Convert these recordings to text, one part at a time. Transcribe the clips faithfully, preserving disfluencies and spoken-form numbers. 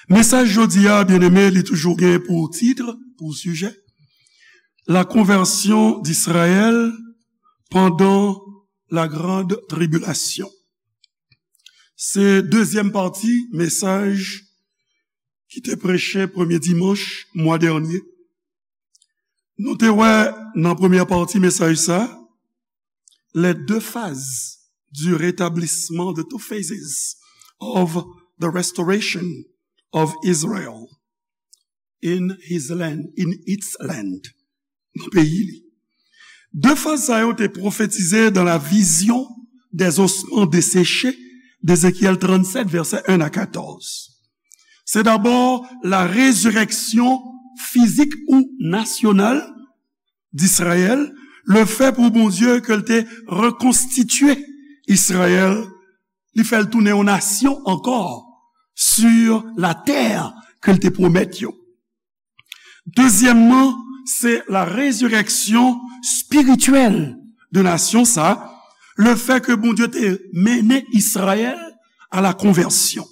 Mesaj jodi a, byeneme, li toujou gen pou tit, pou sijè, la conversion d'Israël pendant la grande tribulation. Se dezyèm pati mesaj ki te preche premye dimanch mwa dènye. Nou te wè nan premyè pati mesaj sa, les deux phases du rétablissement, the two phases of the restoration of Israel in his land, in its land, nan peyi li. De faz sa yo te pwofetize dans la vision des ossements desséchés d'Ézéchiel trannsenk, vèsè en a katòz. Se dabò la rezireksyon fizik ou nasyonal d'Israël, le fè pou Bondye ke l te rekonstitye Izrayèl, li fè l tounen yon nasyon ankò sur la terre ke l te pwomèt yo. Dezyèmman, se la rezireksyon espirityèl de nasyon sa, le fè ke Bondye te mennen Izrayèl a la konvèsyon.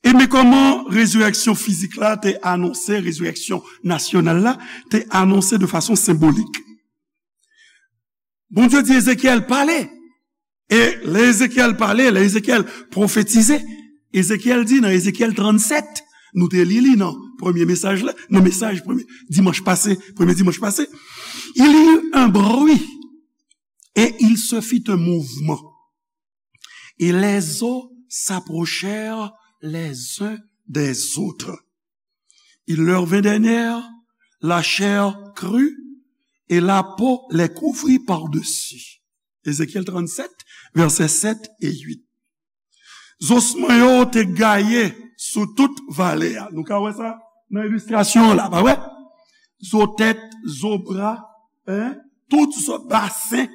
E men kòman rezireksyon fizik la te anonse, rezireksyon nasyonal la te anonse de fason senbolik. Bondye di Ezekyèl, pale. E lè Ezekyèl pale, lè Ezekyèl pwofetize, Ezekyèl di nan Ezekyèl trannsèt, nou te li li nan premye mesaj la, nan mesaj premye dimanch pase, premye dimanch pase, il y eut un bruit et il se fit un mouvement. Et les os s'approchèrent les uns des autres. Il leur vint des nerfs, la chair crut, et la peau les couvrit par-dessus. Ezekyèl trannsèt, vèsè sèt e uit. Zosman yo te gaye sou tout vale a. Nou ka wè sa nan ilistrasyon an la, pa vre? Zo tèt, zo bra, en, tout zo basen,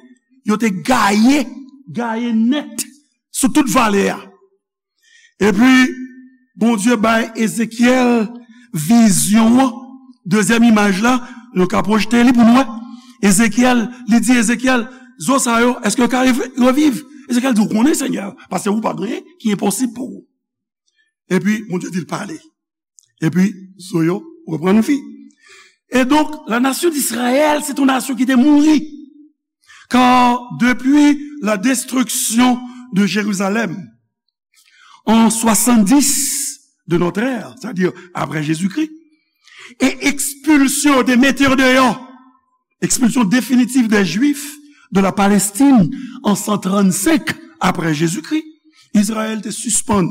yo te gaye, gaye nèt sou tout vale a. Epi, Bondye bay Ezekyèl vizyon an, dezyèm imaj la, nou ka pwojte li pou nou wè. Ezekyèl, li di Ezekyèl, zo sa yo, èske yo ka rev-, reviv? Ezekyèl di, ou konnen, Senyè, paske ou pa gen anyen ki enposib pou ou. Epi, Bondye di l pale. Epi, zo yo reprann vi. Et donc, la nation d'Israël, c'est une nation qui était mourue. Car depuis la destruction de Jérusalem, en soixante-dix de notre ère, c'est-à-dire après Jésus-Christ, e ekspilsyon yo te mete yo deyò, ekspilsyon definitif dè Jwif de la Palestine an san trannsenk apre Jezikri, Izrayèl te sispann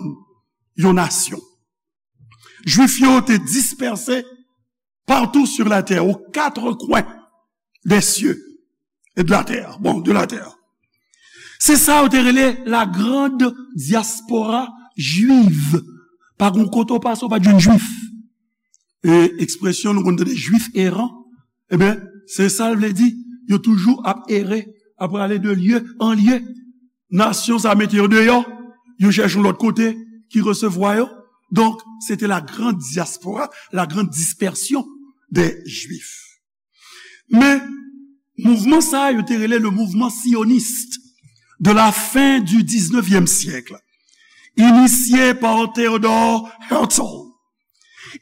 yon nasyon. Jwif yo te dispèse partout sur la terre, aux quatre coins des cieux et de la terre. Bon, de la terre. Se sa yo te rele la grande diaspora juive. Pa gen kote w pase, w pa t jwenn jwif. E ekspresyon nou konn tande jwif eran, ebyen, se sa l vle di. Yo toujou ap ere, ap prale de lye an lye. Nasyon sa mete yo deyò, yo chèche yon lòt kote ki resevwa yo. Donc, c'était la grande diaspora, la grande dispersion des Juifs. Men, mouvman sa a, yo te rele le mouvement sioniste de la fin du dix-neuvième siècle, initié par Theodor Herzl.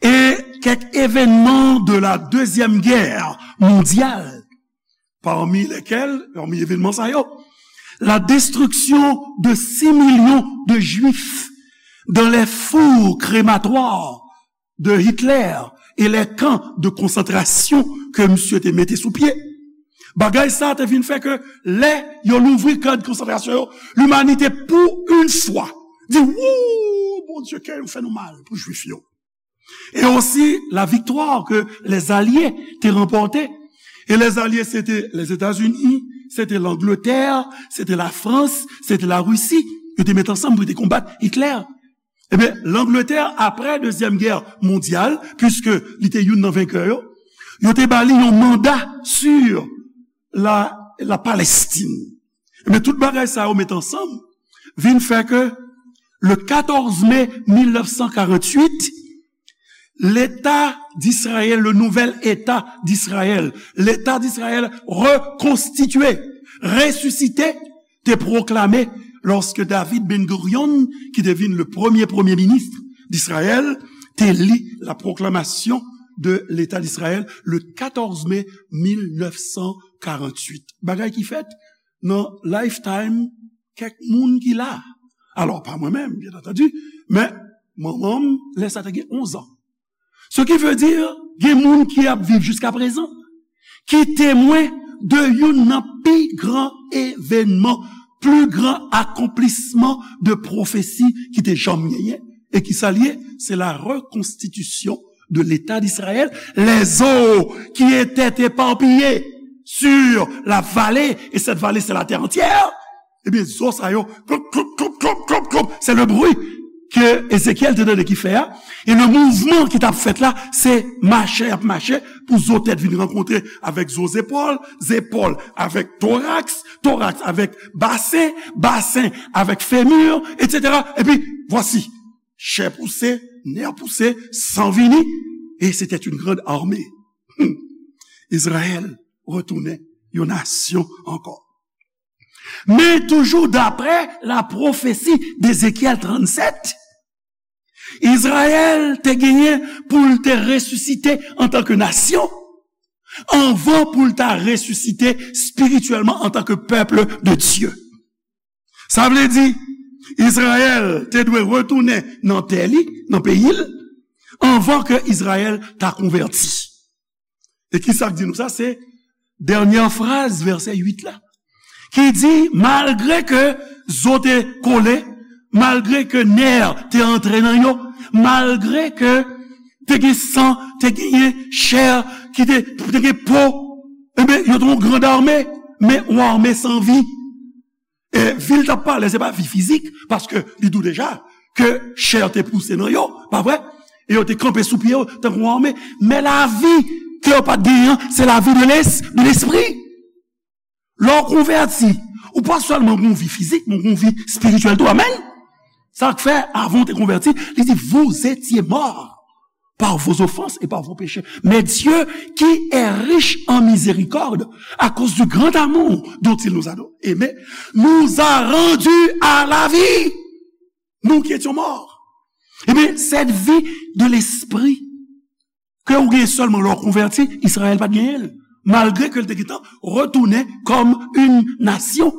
Et quelques événements de la Deuxième Guerre mondiale, parmi lesquels, parmi evènman sa yo, la destruction de six millions de Juifs dans les fours crématoires de Hitler et les camps de concentration ke misye te mete sou pye. Bagay sa te vin fè ke lè yo louvri kan de konsantrasyon yo, limanite pou yon fwa di, wouw, Bondye, kè yo fè nou mal pou Jwif yo. Et aussi la victoire que les Alliés te remporté. Et les Alliés, c'était les États-Unis, c'était l'Angleterre, c'était la France, c'était la Russie. Yo te met ansanm pou yo te konbat Hitler. Ebyen, Langletè, apre Dezyèm Gè Mondyal, piske li te youn nan venkè yo, yo te ba li yon manda sur la, la Palestine. Ebyen, tout bagay sa yo met ansanm, vin fè ke le quatorze mai mil nèf san karanntuit, Leta d'Izrayèl, le nouvel État d'Israël, Leta d'Izrayèl rekonstitye, resisite, te pwoklame lòske David Ben Gurion, ki te vin le premye premye minis d'Israël te li la proclamation de l'État d'Israël le quatorze mai mil nèf san karanntuit. Bagay ki fèt nan lifetime kèk moun ki la. Alò, pa mwen menm, byen antandi, men manman m, lè sa te gen onz an. Ce qui veut dire, gen moun ki ap viv jiska prezan, ki temwen de youn nan pi gran evènman, pli gran akonplisman de pwofesi ki te janm genyen. E ki sa l ye? C'est la reconstitution de l'État d'Israël. Les eaux qui étaient éparpillées sur la vallée, et cette vallée, c'est la terre entière. Ebyen, zo sa yo, klop, klop, klop, klop, klop, klop. Se le bri ke Ezekyèl te tande ki fè a. E le mouvman ki t ap fèt la, se mache y ap mache pou zo tèt vin rankontre avèk zo zepòl, zepòl avèk toraks, toraks avèk basen, basen avèk femur, etsetera. Epi, vwasi, chè pouse, nè pouse, san vini, et c'était une grande armée. Hmm. Izrayèl retounen yon nasyon ankò. Men toujou daprè la pwofesi d'Ezekyèl trannsèt, Izrayèl te genyen pou l te resisite antanke nasyon, anvan pou l ta resisite espirityèlman antanke pèp de Dye. Sa vle di, Izrayèl te dwe retounen nan tè li, nan peyi l, anvan ke Izrayèl ta konvèti. E ki sa k di nou sa? Se dènyè fraz vèsè uit la, ki di, malgre ke zo te kole, malgre ke nè te antre nan yo, malgre ke te gen san, te genyen chè ki te, te gen po, ebyen, yo te yon grand armée, men yon armée san vi. E vi l t ap pale, se pa vi fizik, paske li di w deja ke chè te pouse nan yo, pa vre? E yo te kanpe sou pye yo, tankou yon arme. Men lavi ke yo pa t genyen an, se lavi de les-, de lespri. Lè w konvèti, ou pa sèlman gen yon vi fizik, men gen yon vi espirityèl tou. Amèn? Sa k fè, avan w te konvèti, li di, vous étiez morts par vos offenses et par vos péchés. Mais Dieu, qui est riche en miséricorde, à cause du grand amour dont il nous a aimés, nous a rendus à la vie. Nous qui étions morts. Ebyen, cette vie de l'esprit ke ou gen sèlman lè w konvèti, Izrayèl pa t genyen l. Malgre ke l te gentan retounen kòm yon nasyon.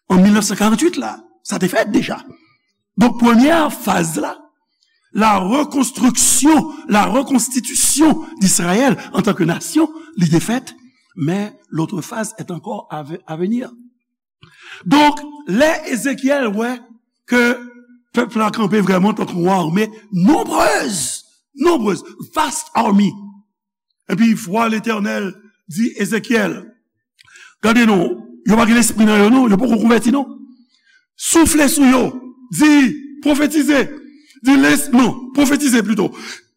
An mil nèf san karanntuit la, sa te fèt deja. Donk, premyè faz la, la reconstruction, la reconstitution d'Israël en tant que nation, li te fèt, mais l'autre phase est encore à ve-, à venir. Donk, lè Ezekyèl wè ke pèp la kanpe vrèman tankou yon arme nonbrez, nonbrez, vast army. Epi vwa Letènèl di Ezekyèl, gade non, yo pa gen lespri nan yo non, yo poko konvèti non. Soufle sou yo, di, pwofetize, di les-, non, pwofetize plito.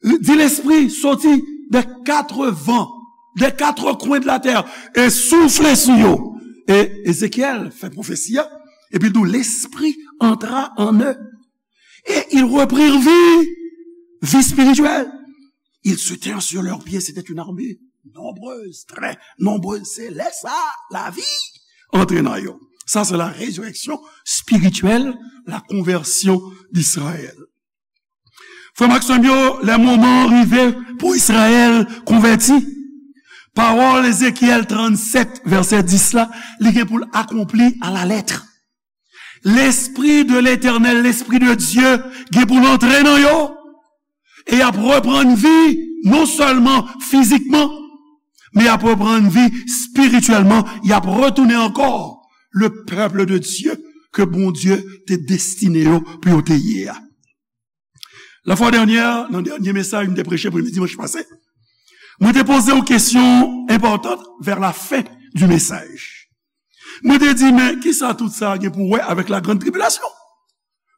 Di lespri soti de kat van, de kat kwen de la tè, e soufle sou yo. E Ezekyèl fè pwofesi a, epi l di, l'esprit entra en eux. Et ils reprirent vie, vie spirituelle. Ils se tinrent sur leurs pieds, c'était une armée nombreuse, très nombreuse. Se lè sa, lavi antre nan yo. Sa se la résurrection spirituelle, la conversion d'Israël. Frè m ak sè m yo, lè moman an rive pou Izrayèl konvèti, pawòl Ezekyèl trannsèt, vèsè dis la, li gen pou l akonpli à la lettre. Lespri de Letènèl, Lespri de Dye, gen pou l antre nan yo, e y ap reprann vi, non sèlman fizikman, men y ap reprann vi espirityèlman, y ap retounen ankò le peuple de Dieu ke Bondye te destine yo pou yo te ye a. La fwa dènyè, nan dènye mesaj m te preche premye dimanch pase, mwen te poze yon kesyon enpòtan vers la fin du message. Mwen te di, men kisa tout sa gen pou wè avèk la grande tribulation?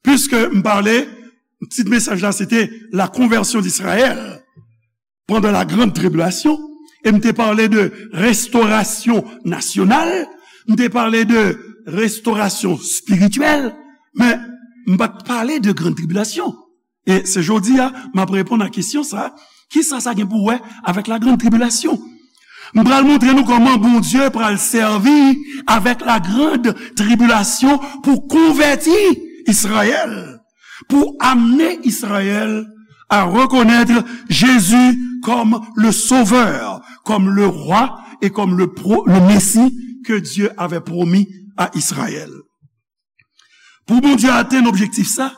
Piske m pale, tit mesaj la se te la conversion d'Israël pendant la grande tribulation, e m te pale de restorasyon nasyonal, m te pale de restorasyon espirityèl, men m pa t pale de grande tribulation. E se jodi a, m ap reponn a kesyon sa, kisa sa gen pou wè avèk la grande tribulation? M pral montre nou kòman Bondye pral sèvi avèk la grande tribulation pou konvèti Izrayèl. pour amener Israël à reconnaître Jésus comme le Sauveur, comme le Roi et comme le, pro- le Messie que Dieu avait promis à Israël. Pou Bondye atenn objektif sa,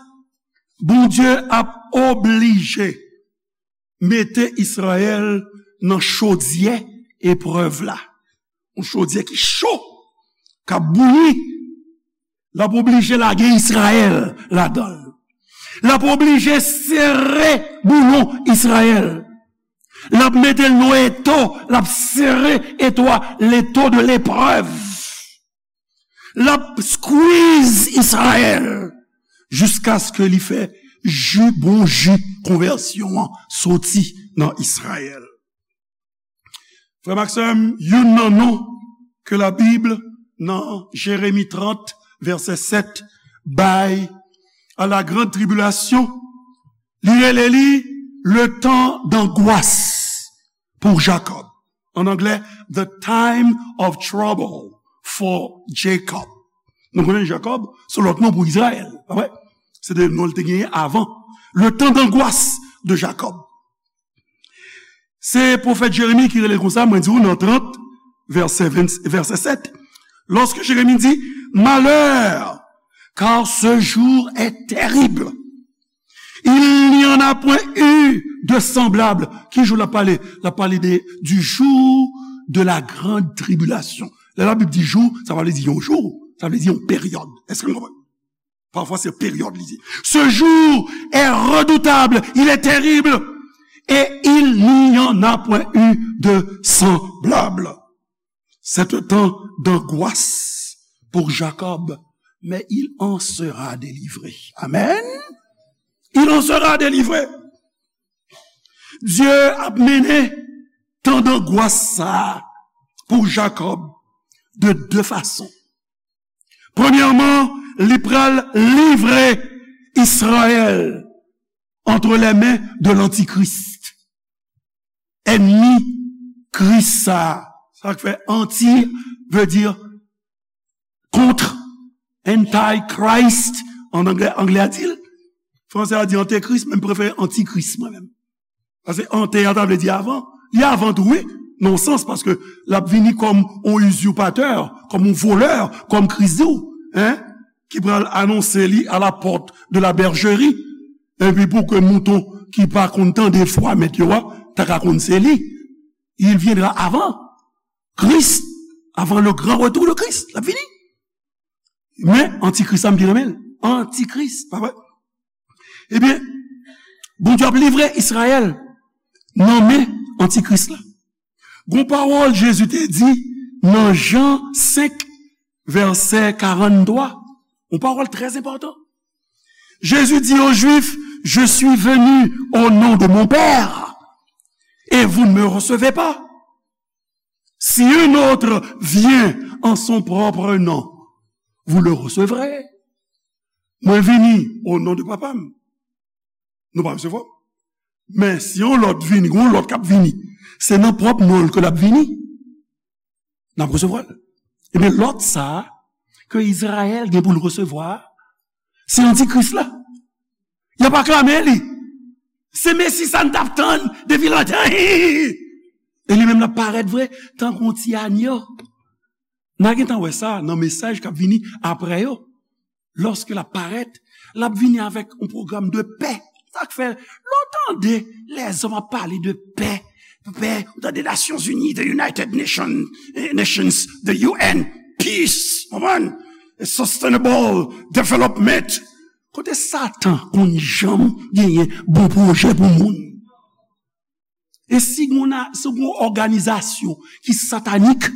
Bondye ap oblije mete Izrayèl nan chodyè eprèv la. Yon chodyè ki cho, k ap bouyi. L ap oblije lage Izrayèl ladan l. L ap oblije sere boulon Izrayèl. L ap mete l nan eto, l ap sere eto a, l'étau de l'épreuve. L ap squeeze Izrayèl jiskaske li fè ji, bon ji konvèsyon an soti nan Izrayèl. Frè m ak sè m, youn nan non ke Labib nan Jeremi trant, vèsè sèt, bay a la grande tribulation, li rele li le temps d'angoisse pour Jacob. En anglais, the time of trouble for Jacob. Nou konnen Jakòb, se lòt non pou Izrayèl, pa vre? Se de non l te genyen avan. Le temps d'angoisse de Jacob. Se pwofèt Jeremi ki rele l konsa, mwen di w nan trant, vèsè ven, vèsè sèt. Lorsque Jérémie dit, malheur, car ce jour est terrible. Il n'y en a point eu de semblable. Ki jou l ap pale? L ap pale de, du jour de la grande tribulation. Lè Labib di jou, sa pa vle di yon jou, sa vle di yon peryòd. Èske nou konprann? Parfois, c'est période, il dit. Ce jour est redoutable, il est terrible, et il n'y en a point eu de semblable. C'est un temps d'angoisse pour Jacob, mais il en sera délivré. Amen. Il en sera délivré. Dye ap mennen tan dangwas sa a pou Jakòb de de fason. Premyèman, li pral livre Izrayèl entre les mains de l'Antichrist. Ènmi Kris sa a. Sa k fè anti veut dire contre. Antichrist, an anglè, anglè a di l. Fransè a di antikris, men m prefere antikris, mwen menm. Paske ante a ta vle di avan. Li avan tou, wi, nan yon sans, paske l ap vini kòm yon usurpateur, kòm yon volè, kòm Kris di w, hein, ki pral anonse li à la porte de la bergerie. Epi pou ke mouton ki pa konn tande vwa mèt yo a, ta ka konn se li. Il viendra avant Christ, avant le grand retour de Christ. L ap vini. Men, antikris la, m byen renmen l. Antikris, pa vre? Ebyen, Bondye ap livre Izrayèl nan men antikris la. Gon pawòl Jezi te di nan Jan senk, vèsè karannntwa. Yon pawòl trè enpòtan. Jésus dit aux Juifs, je suis venu au nom de mon Père, et vous ne me recevez pas. Si un autre vient en son propre nom, vous le recevrez. Mwen vini o non de Papa m. Nou pa resevwa m. Men si yon lòt vini, yon lòt k ap vini, se nan pwòp non l ke l ap vini. N ap resevwa l. Ebyen, lòt sa a, ke Izrayèl gen pou l resevwa a, se antikris la. Y ap aklame li. Se Mesi sa n t ap tann depi lontan. E li menm l ap parèt vre, tankou yon ti anyo. N a gentan wè sa nan mesaj k ap vini apre yo. Lòske l ap parèt, l ap vini avèk yon pwogram de pè. Sa k fè, lè w tande lèzòm ap pale de pè, pè, ou tande Nations Unies, the United Nations, eh, Nations, the U N, peace, konprann? Sustainable development. Kote Satan konn janm genyen bon pwojè pou moun? E si gon na-, si gon òganizasyon ki satanik,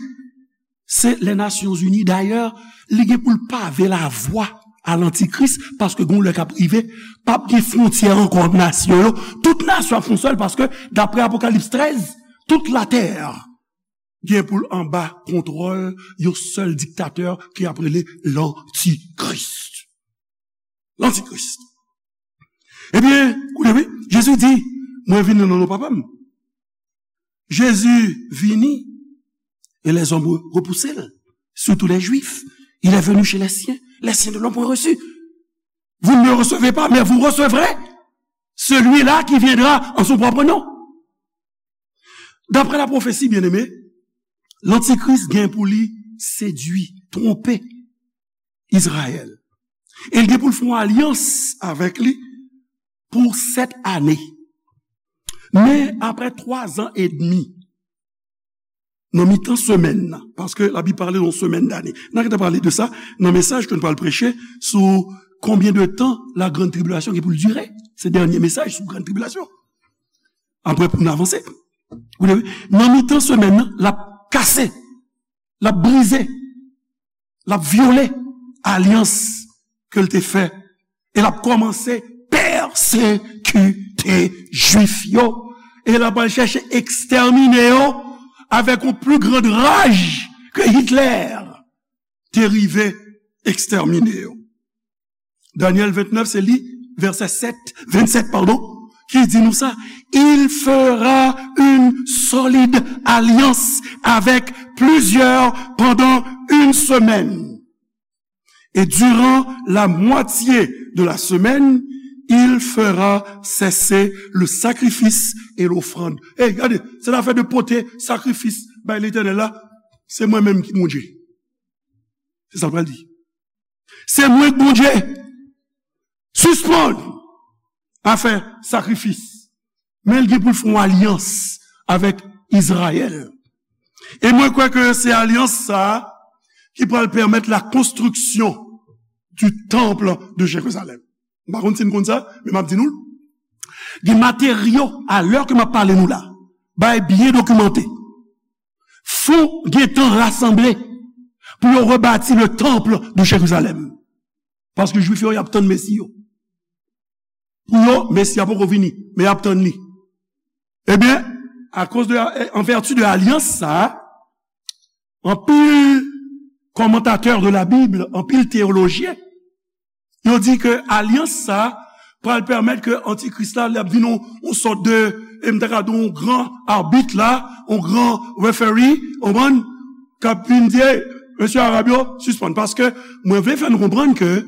se les Nations Unies. Dayè, li gen pou l pave lavwa a lantikris, paske gon lè k ap rive, p ap gen fwontyè ankò ant nasyon yo. Tout nasyon ap fè yon sèl, paske, daprè Apokalips trèz, tout latè gen pou l anba kontwòl yon sèl diktatè ki ap rele lantikris. Lantikris. Ebyen, koute wi, Jezi di, mwen vini nan non Papa m. Jezi vini, e lèzòm re-, repouse l, surtout les Juifs. Il est venu chez les siens, les siens ne l'ont point reçu. Vous ne me recevez pas, mais vous recevrez celui-là qui viendra en son propre nom. D'après la prophétie, bien-aimé, lantikris gen pou li sedui, twonpe Izrayèl. E l gen pou l fè yon alyans avèk li pou sèt ane. Men apre twa zan edmi, nan mitan semèn nan, paske Labib pale de yon semèn dane. N a gentan pale de sa nan mesaj ke n pral preche sou combien de temps la grande tribulation gen pou l dire. Se dènye mesaj sou grande tribulation. Apre pou n avanse. Nan mitan semèn nan, l ap kase, l ap brize, l ap vyole alyans ke l te fè. E l ap kòmanse pèsekite Jwif yo. E l ap al chèche ekstèmine yo avèk yon pli grand raj ke Hitler te rive ekstèmine yo. Danyèl vennèf, se li, vèsè sèt, vennsèt, padon, ki di nou sa, Il fera une solide alliance avec plusieurs pendant une semaine. Et durant la moitié de la semaine, il fera cesser le sacrifice et l'offrande. Ey, gade, se afè de pote sakrifis bay Letènèl la, se mwen menm ki Bondye. Se sa l pral di. Se mwen k Bondye. Sispann afè sakrifis. Men l gen pou l fè yon alyans avèk Izrayèl. E mwen kwè ke se alyans sa a ki pral pèmèt la konstriksyon du temple de Jérusalem. M pa konn si n konn sa, men m ap di nou l. Gen materyo, a lè ke m ap pale nou la, bagay byen dokimante. Fon gentan rasanble pou yo rebati le temple de Jérusalem. Paske Jwif yo, y ap tann Mesi yo. Pou yo, Mesi a poko vini, men y ap tann li. Ebyen, akoz de, an vèti de alyans sa a, anpil kòmantatè de la Bib, anpil teyolojyen, yo di ke alyans sa a pral pèmèt ke Antikris la, l ap vin yon, yon sòt de, e m ta ka di yon gran abit la, yon gran referee, w konprann, k ap vin di, "Ey, mesye Arab yo, sispann." Paske mwen vle fè nou konprann ke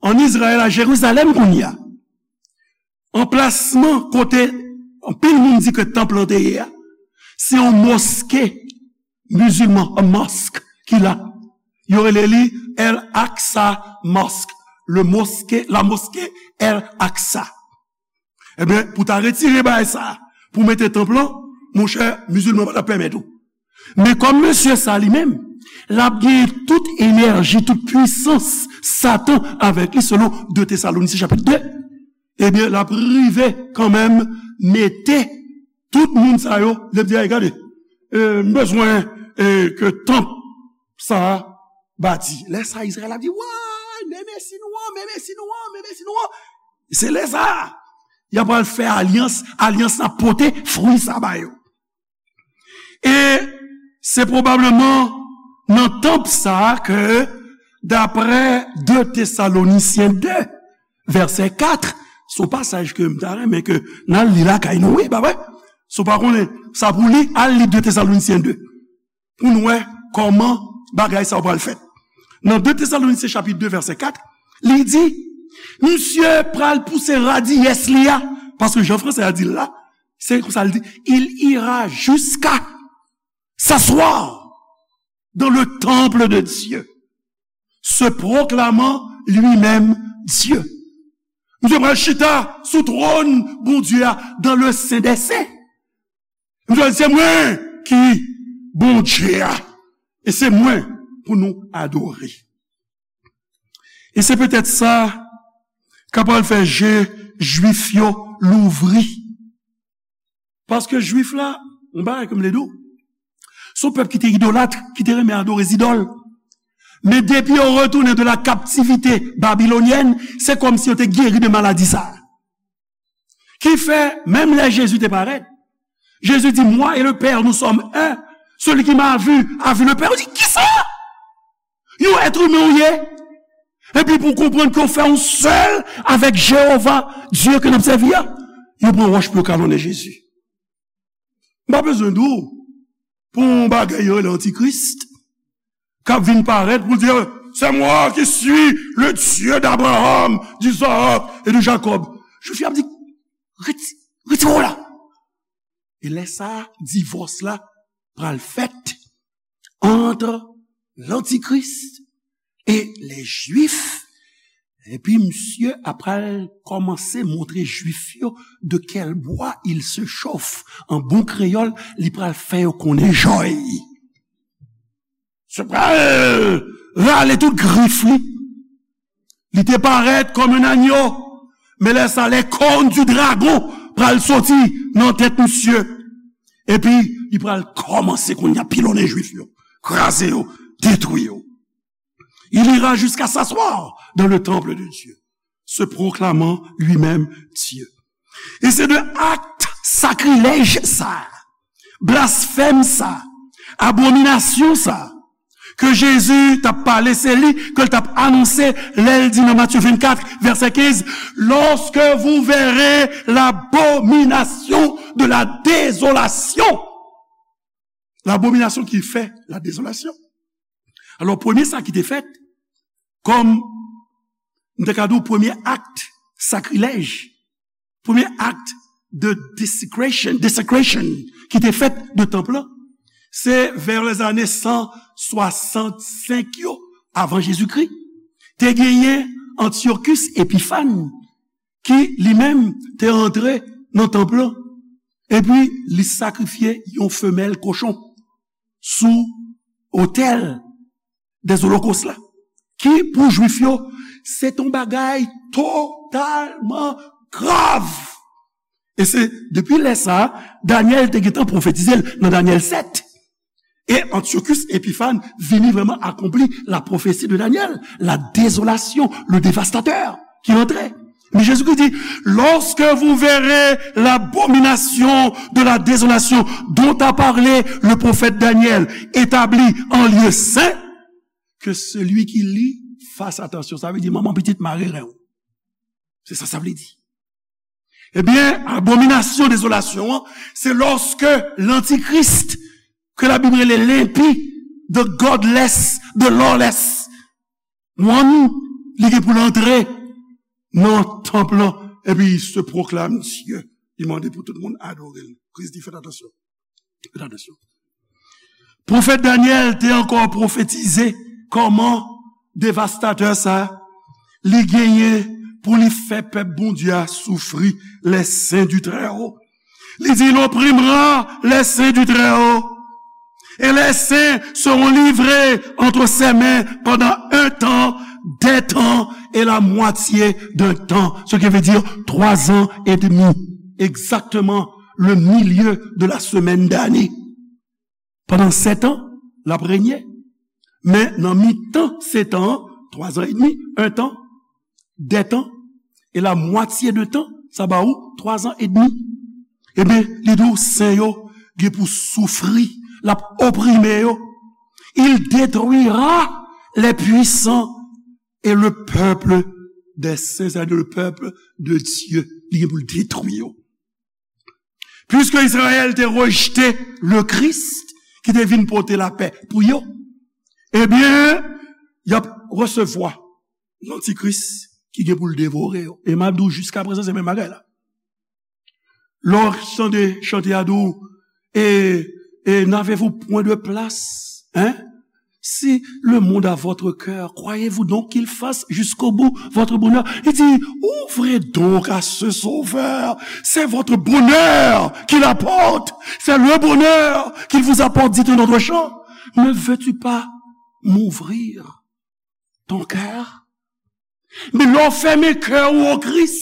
ann Izrayèl, a Jerizalèm kounye a, anplasman kote anpil moun di ke tanp lan te ye a, se yon moske mizilman, yon mosque ki la. Yo rele li El Aqsa Mosque, le mosquée, la mosquée El Aqsa. Ebyen, pou ta retire bagay sa, pou mete tanp lan, monchè, mizilman pa t ap pèmèt ou. Men kòm mesye sa li menm, l ap gen tout enèji, tout pwisans Satan avèk li, selon de Tesalonisyen chapit de, ebyen, l ap rive kanmenm mete tout moun sa yo, l ap di, "Ay, gade, e, m bezwen, e, ke tanp sa a bati." Lè sa a, Izrayèl ap di, "Wa, men Mesi nou an, men Mesi nou an, men Mesi nou an." Se lè sa a, y ap al fè alyans, alyans la pote fwi sa ba yo. E se pwobableman nan tanp sa a ke, daprè de Tesalonisyen de, vèsè kat, se yon pasaj ke m ta renmen ke n al li lakay nou, wi, pa vre? Si w pa konnen sa pou li, al li de Tesalonisyen de. Pou n wè kòman bagay sa yo pral fèt. Nan de Tesalonisyen chapit de, vèsè kat, li di, misye pral pouse radiyès li a, paske jan fransè a di l la, se konsa l di, il ira jusqu'à s'asseoir dans le temple de Dieu, se proclamant lui-même Dieu. Misye pral chita sou twòn Bondye a, dans le Saint des Saints. Misye di, se mwen ki Bondye a, e se mwen pou nou adore. E se petèt sa k ap pral fè je Jwif yo louvri. Paske Jwif la, yon bagay ke m vle di w, se yon pèp ki te idolat, ki te renmen adore zidòl. Men depi yo retounen de la captivité babylonienne, se kòmsi yo te geri de maladi sa a. Ki fè, menm lè Jezi te parèt, Jezi di, "Moi et le Père, nous sommes un. Celui qui m'a vu a vu le Père." Yo di, "Kisa? Yon èt imen ou ye? Epi pou w konprann ke w fè yon sèl avèk Jewova, Dye ke n ap sèvi a?" Yo pran wòch pou yo kalonnen Jezi. M pa bezwen di w pou yon bagay yo rele antikris k ap vin parèt pou l di, C'est moi qui suis le Dieu d'Abraham, d'Isaac et de Jacob. Jwif yo ap di, "Reti-, retire w la." E lè sa a, divòs la pral fèt ant lantikris e lè Jwif. Epi misye ap pral kòmanse montre Jwif yo de quel bois il se chauffe. An bon kreyòl, li pral fè yo konnen jòy. Se pral rale tout grif li. Li te parèt kòm yon anyo, men lè sa, les cornes du dragon pral soti nan tèt misye. Epi, li pral kòmanse kounye a pilonnen Jwif yo, kraze yo, detwi yo. Il ira jusqu'à s'asseoir dans le temple de Dieu, se proclamant lui-même Dieu. E se de akt sakrilèj sa, blasfèm sa, abominasyon sa, ke Jezi t ap pale, se li ke l t ap anonse lè l di nan Matye vennkat, vèsè kenz, "Lorsque vous verrez l'abomination de la désolation." Labominasyon ki fè la dezolasyon. Alò, premye sa ki te fèt, kòm m te ka di w, premye akt sakrilèj, premye akt de desecration, desecration ki te fèt de tanp lan, se vè lèzane san swasannsenk yo avan Jezikri. Te genyen Antyochus Epiphan, ki li menm te antre nan tanp lan, epi li sakrifye yon femèl kochon sou otèl dèzolokos la, ki pou Jwif yo, se t on bagay totalman grav. E se depi lè sa a, Danyèl te gentan pwofetize l nan Danyèl sèt. E Antyochus Epiphan vini vrèman akonpli la prophétie de Daniel, la désolation, le dévastateur qui entrait. Men Jezikri di, "Lorsque vous verrez l'abomination de la désolation dont a parlé le prophète Daniel établie en lieu saint, que celui qui lit fasse attention." Sa vle di, manman pitit, mare ren w. Se sa sa vle di. Ebyen, abominasyon dezolasyon an, se lòske lantikris, ke Labib rele lenpi, the godless, the lawless one, li gen pou l antre nan tanp lan, epi se pwoklame Dye. Li mande pou tout moun adore l. Kris di, fèt atansyon. Fèt atansyon. Pwofèt Danyèl te ankò pwofetize kòman devastatè sa, li genyen pou li fè pèp Bondye a soufri, les saints du Très-Haut. Li di, il opprimera les saints du Très-Haut. Et les saints seront livrés entre ses mains pendant un temps, des temps et la moitié d'un temps. Ce qui veut dire trois ans et demi. Exactement le milieu de la semaine d'année. Pandan sèt an, l ap renye. Men nan mitan sèt an, twa zan edmi, en tan, de tan, e la mwatye de tan, sa ba ou twa zan edmi. Ebyen, li di w, sen yo gen pou soufri, l ap oprime yo. Il détruira les puissants et le peuple des saints, c'est-à-dire le peuple de Dieu. Li gen pou l detwi yo. Puiske Izrayèl te rejte le Christ ki te vin pote lapè pou yo, ebyen, y ap resevwa lantikris ki gen pou l devore yo. E m ap di w, jiskaprezan, se menm bagay la. Lè w tande chante a di w, e, e, n'avez-vous point de place? Hein? Si le monde a votre cœur, croyez-vous donc qu'il fasse jusqu'au bout votre bonheur? Il dit, ouvrez donc à ce Sauveur. C'est votre bonheur qu'il apporte. C'est le bonheur qu'il vous apporte, dit un autre chant. Ne veux-tu pas m'ouvrir ton cœur? Men lè w fèmen kè w o Kris,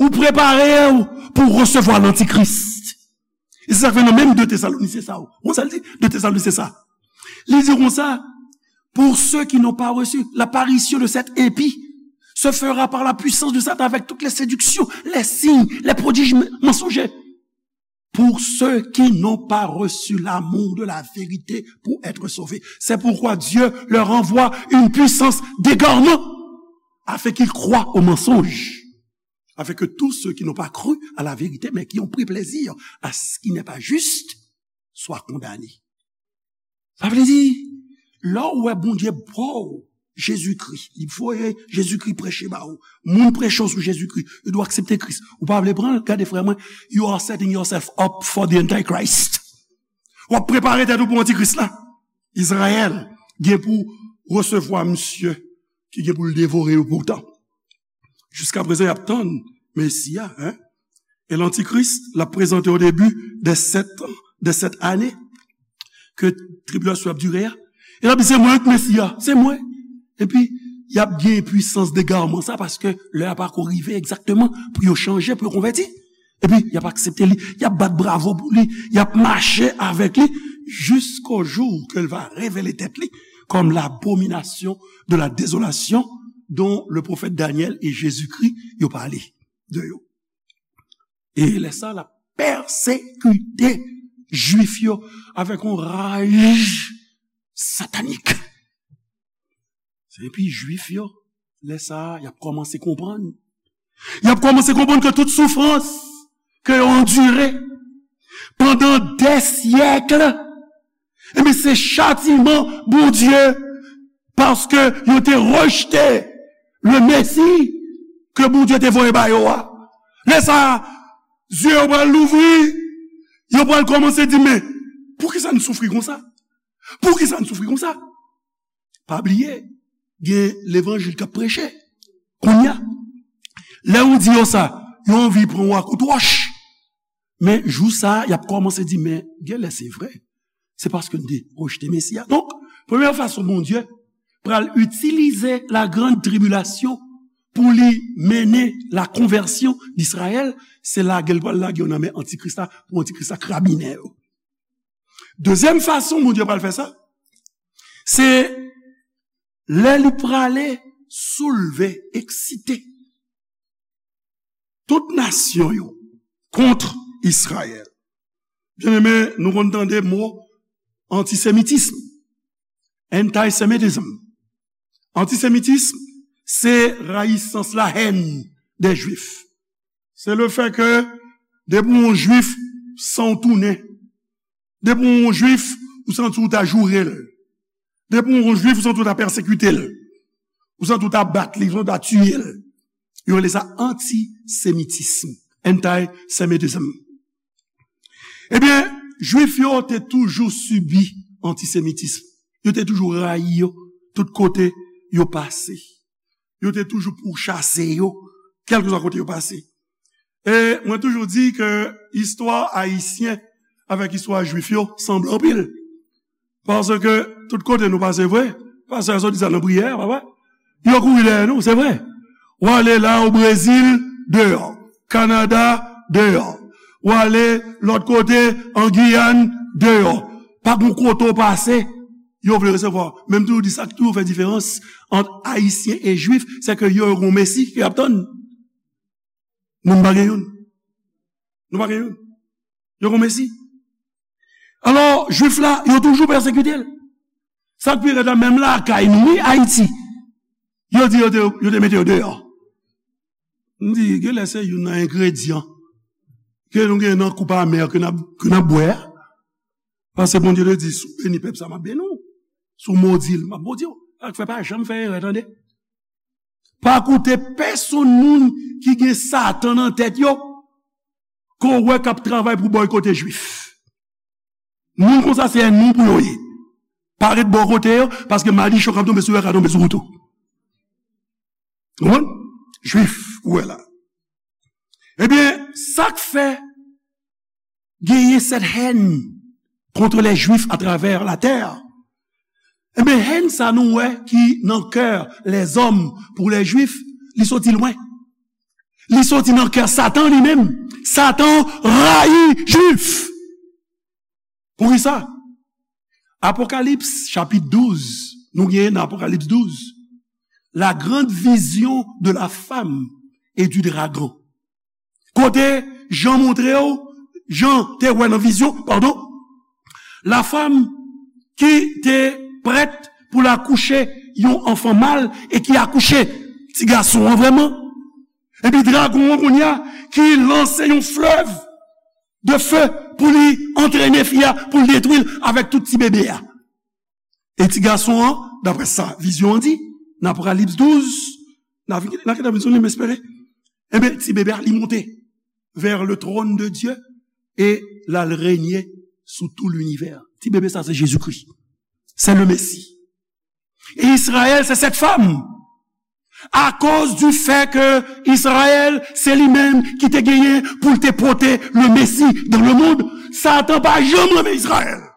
ou prepare w pou resevwa lantikris. E se sa k fè nan menm de Tesalonisyen sa, ou konn sa l di? De Tesalonisyen sa. Li di konsa, pour ceux qui n'ont pas reçu l'apparition de cet impie, se fera par la puissance de Satan avec toutes les séductions, les signes, les prodiges mensongers. Pour ceux qui n'ont pas reçu l'amour de la vérité pour être sauvés. C'est pourquoi Dieu leur envoie une puissance d'égarement, afin qu'ils croient au mensonge, afin que tous ceux qui n'ont pas cru à la vérité, mais qui ont pris plaisir à ce qui n'est pas juste, soient condamnés. Sa vle di, lè w wè Bondye ba w Jezikri, li voye Jezikri preche ba ou, moun preche w sou Jezikri, ou dwe aksepte Kris. Ou pa vle pran l, gade frè mwen, you are setting yourself up for the Antichrist. W ap prepare tèt ou pou Antikris la. Izrayèl gen pou resevwa misye ki gen pou l devore yo poutan. Jiskaprezan, y ap tann Mesi a, en. E Lantikris, l ap prezante o debi de sèt an, de sèt ane ke tribilasyon ap dire a. E l ap di, "Se mwen k Mesi a, se mwen." Epi, y ap gen pwisans degarman sa, paske lè a pako rive egzakteman pou yo chanje, pou yo konvèti. Epi, y ap aksepte li, y ap bat bravo pou li, y ap mache avèk li, jusqu'au jour que l va révéler tèt li comme l'abomination de la désolation dont le prophète Daniel et Jésus-Christ yo pale de yo. E lè sa, l ap pèsekite Jwif yo avèk yon raj satanik. Epi Jwif yo, lè sa a, y ap kòmanse konprann. Y ap kòmanse konprann ke tout soufrans ke yo andire pandan dè syèk, ebyen, se chatiman Bondye, paske yo te rejte le Mesi ke Bondye te voye ba yo a. Lè sa a, zye yo pral louvri, yo pral kòmanse di, "Men, poukisa n soufri konsa? Poukisa n soufri konsa?" Pa bliye, gen levanjil k ap preche. Kounye a, lè ou di yo sa, yo anvi pran w a kout wòch. Men jou sa a, y ap kòmanse di, "Men, genlè se vre. Se paske n te rejte Mesi a." Donk, premyè fason Bondye pral itilize la grande tribulation pou li mennen la konvèsyon d Izrayèl, se lage l pral lage yo nan men Antikris la, pou Antikris la krabinen yo. Dezyèm fason Bondye pral fè sa, se lè li prale soulve, eksite tout nasyon yo kont Izrayèl. Byeneme, nou konn tande mo antisemitism, antisemitism. Antisemitism, se rayisans, la haine des Juifs. Se le fè ke depi w yon Jwif, san w tounen. Depi w yon Jwif, ou santi w ta joure l. Depi w yon Jwif, ou santi w ta pèsekite l. Ou santi w ta bat li, ou santi w ta tiye l. Yo rele sa antisemitism, antisemitism. Ebyen, Jwif yo te toujou sibi antisemitism. Yo te toujou rayi yo tout kote yo pase. Yo te toujou pouchase yo, kèlkeswa kote yo pase. E mwen toujou di ke istwa ayisyen avèk istwa jwif yo sanble anpil. Paske tout kote nou pase vre, pastè a sot di sa nan priyè a, papa. Yo kouri dèyè nou, se vre. W ale la o Brezil, deyò. Kanada, deyò. W ale lòt kote, an Giyàn, deyò. Pa gen kote w pase, yo vle resevwa w. Men m toujou di sa k toujou fè diferans ant Ayisyen e Jwif, se ke yo, yo gen yon Mesi ke y ap tann. Nou, nou pa gen youn. Nou pa gen youn. Yo gen yon Mesi. Alò, Jwif la, yo toujou pèsekite l. Sa k pi rèd la, menm lakay nou, wi, Ayiti, yo di yo te, yo te mete yo deyò. M di, genlè se youn nan engredyan ke nou gen nan koup amè ke n ap, ke n ap bwè a. Paske Bondye te di, "Si w beni pèp sa, m ap beni w. Si w modi l, m ap modi w." Sa k fè pa janm fè erè, tande. Pa koute pèsonn moun ki gen Satan nan tèt yo, ke w wè k ap travay pou bòykote Jwif. Moun konsa se ènmi w pou yo ye. Pa ret bò kote yo, paske madichon k ap tonbe sou yo ka tonbe sou ou tou. Ou konprann? Jwif, ou wè la. Ebyen, sa k fè genyen cette haine contre les Juifs à travers la terre? Ebyen, haine sa nou wè ki nan kè lèzòm pou lèjwif, li soti lwen. Li soti nan kè Satan li menm. Satan rayi Jwif. Poukisa? Apokalips, chapit douz, nou genyen nan Apokalips douz, la grande vision de la femme et du dragon. Kote Jan montre w, Jan te wè nan vizyon, padon, la femme ki te prèt pou l akouche yon anfan mal e ki akouche ti gason an vrèman. Epi dragon an kounye a ki lanse yon flèv de feu pou li antrene fi a, pou l detwi l avèk tout ti bebe a. E ti gason an, daprè sa vizyon an di, nan Apokalips douz, nan, nan ki vizyon li, m espere, enben, ti bebe a, li monte vers le trône de Dieu e l al renye sou tout l'univers. Ti bebe sa, se Jezikri. Se le Mesi. E Izrayèl, se sèt fanm. Akoz di fè ke Izrayèl, se li menm ki te genyen pou l te pote le Mesi dans le monde, Satan pa janm renmen Izrayèl.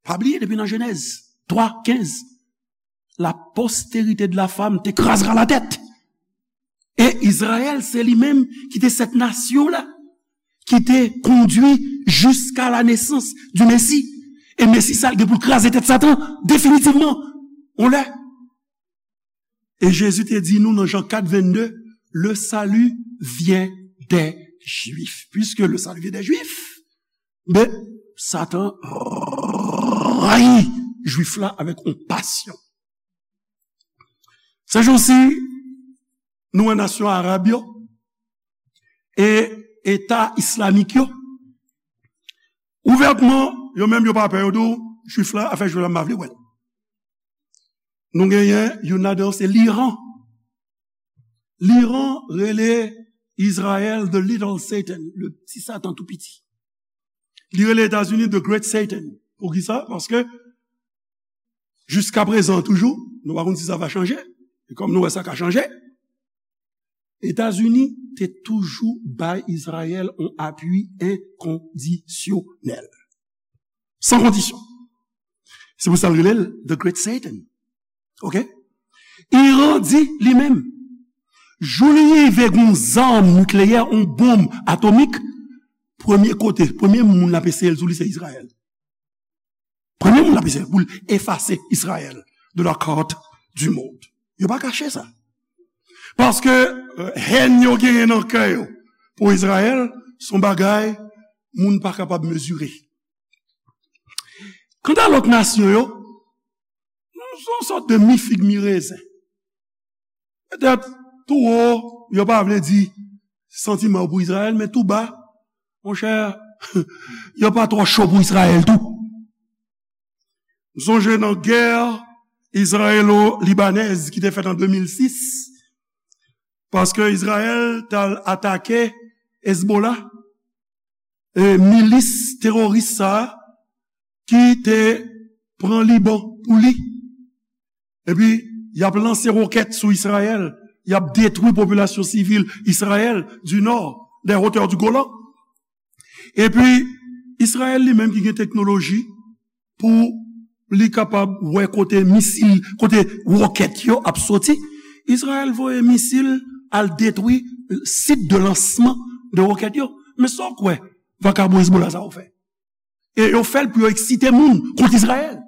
Pa bliye, depi nan Jenèz twa kenz, la postérité de la femme te krazra la tèt. E Izrayèl, se li menm ki te sèt nasyon la, ki te kondui jusqu'à la naissance du Messie. E Mesi sa, l gen pou l kraze tèt Satan, definitivman. On lè. E Jezi te di nou nan Jan kat vennde, le salut vient des Juifs. Puisque le salut vient des Juifs, ben, Satan rayi Jwif la avèk yon pasyon. Se jou si, nou wè nasyon arab yo e eta islamik yo, ouvètman, yo menm yo pa pè, yo di w, Jwif la, afè Jwif la, m pa vle wè l. Nou genyen youn ladan yo, se Liran. Liran rele Izrayèl the little Satan, le petit Satan tou piti. Li rele Etazini the great Satan. Poukisa? Paske jiska prezan toujou, nou pa konn si sa va chanje. E kòm nou wè sa ka chanje, Etazini te toujou bay Izrayèl yon apui enkondisyonèl. San kondisyon. Se pou sa l rele l the great Satan. Oke? Iran di li menm, jou li rive gen yon zam nikleyè, yon bonm atomik, premye kote, premye moun l ap eseye l sou li, se Izrayèl. Premye moun l ap eseye pou l efase Izrayèl de la carte du monde. Yo pa kache sa. Paske, euh, hèn yo genyen nan kè yo pou Izrayèl, se yon bagay moun pa kapab mezire. Kanta lòt nasyon yo, nou se yon sòt de mi fig mi rezen. Petèt, tou wo, yo pa vle di santiman yo pou Izrayèl, men tou ba, monchè, yo pa twò cho pou Izrayèl tou. M sonje nan gè izrayelo-libanèz ki te fèt an de mil sis, paske Izrayèl t al atake Hezbollah, e, milis teworis sa a ki te pran Liban pou li. Epi, y ap lanse wokèt sou Izrayèl, y ap detwi popilasyon sivil Izrayèl du nord, des hauteurs du Golan. Epi, Izrayèl li menm ki gen teknoloji pou li kapab wè kote misil, kote wokèt yo ap soti, Izrayèl voye misil al detwi sit de lansman de wokèt yo. Men sa w kwè vakabon Hezbollah sa yo fè? E yo fè l pou yo eksite moun kont Izrayèl.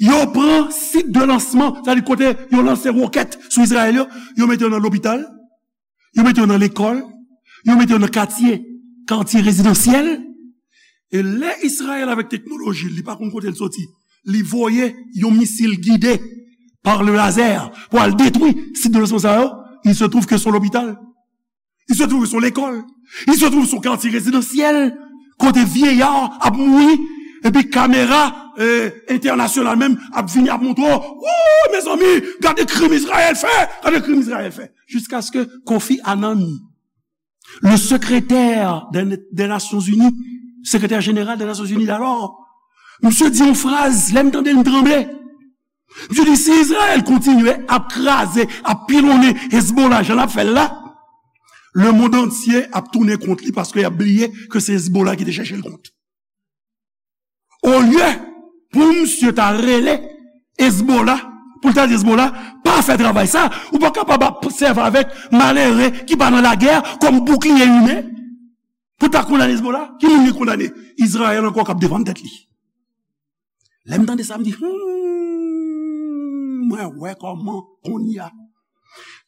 Yo pran sit de lansman, sa di kote yo lanse wokèt sou Izrayèl yo, yo mete yo nan lopital, yo mete yo nan lekòl, yo mete yo nan katye, katye rezidansyèl. E lè Izrayèl avèk teknoloji, li pa konn kote l soti, li voye yon misil gide par le laser pou al detwi sit de lansman sa yo, il se trouve que se yon lopital. Il se trouve se yon lekòl. Il se trouve se yon katye rezidansyèl kote vyeyar ap mouri, epi kamera, eh, entènasyonal menm ap vini ap montre w, wouy, mezanmi, gade krim Izrayèl fè, gade krim Izrayèl fè. Jiskaske Kofi Annan, le secrétaire des, des Nations Unies, sekretè jeneral des Nations Unies d'alors, misye di yon fraz, lè m tande l, m tranble. Misye di, si Izrayèl kontinye ap kraze, ap pilonnen Hezbollah jan l ap fè l la, lemonn antye ap tounen kont li paske y ap bliye ke se Hezbollah ki te chèche l kont. Olye pou misye ta rele Hezbollah, pou l ta di Hezbollah, pa fè travay sa, ou pa kapab ap sèvi avèk malere ki pa nan lagè kòm boukliye imen pou ta kondane Hezbollah. Ki moun ki kondane? Izrayèl ankò k ap defann tèt li. Lè m tande sa, m di, hmm, mwen wè kòman kounye a.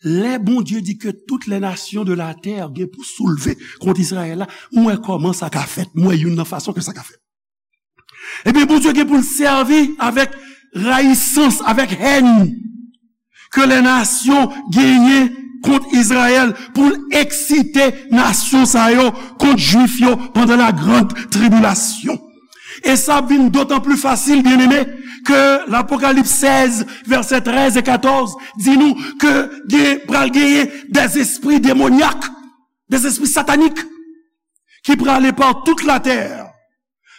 Lè Bondye di ke toutes les nations de la terre gen pou soulve kont Izrayèl la, m wè kòman sa ka fèt, m wè youn nan fason ke sa ka fèt. Ebyen, Bondye gen pou l sèvi avèk rayisans, avèk hèn ke lè nasyon genyen kont Izrayèl pou l eksite nasyon sa yo kont Jwif yo pandan la grande tribulation. E sa ap vin dotan pli fasil, byeneme, ke Lapokalips sèz, vèsè trèz e katòz, di nou ke gen, pral genyen des esprits démoniaques, des esprits sataniques, ki prale pa tout latè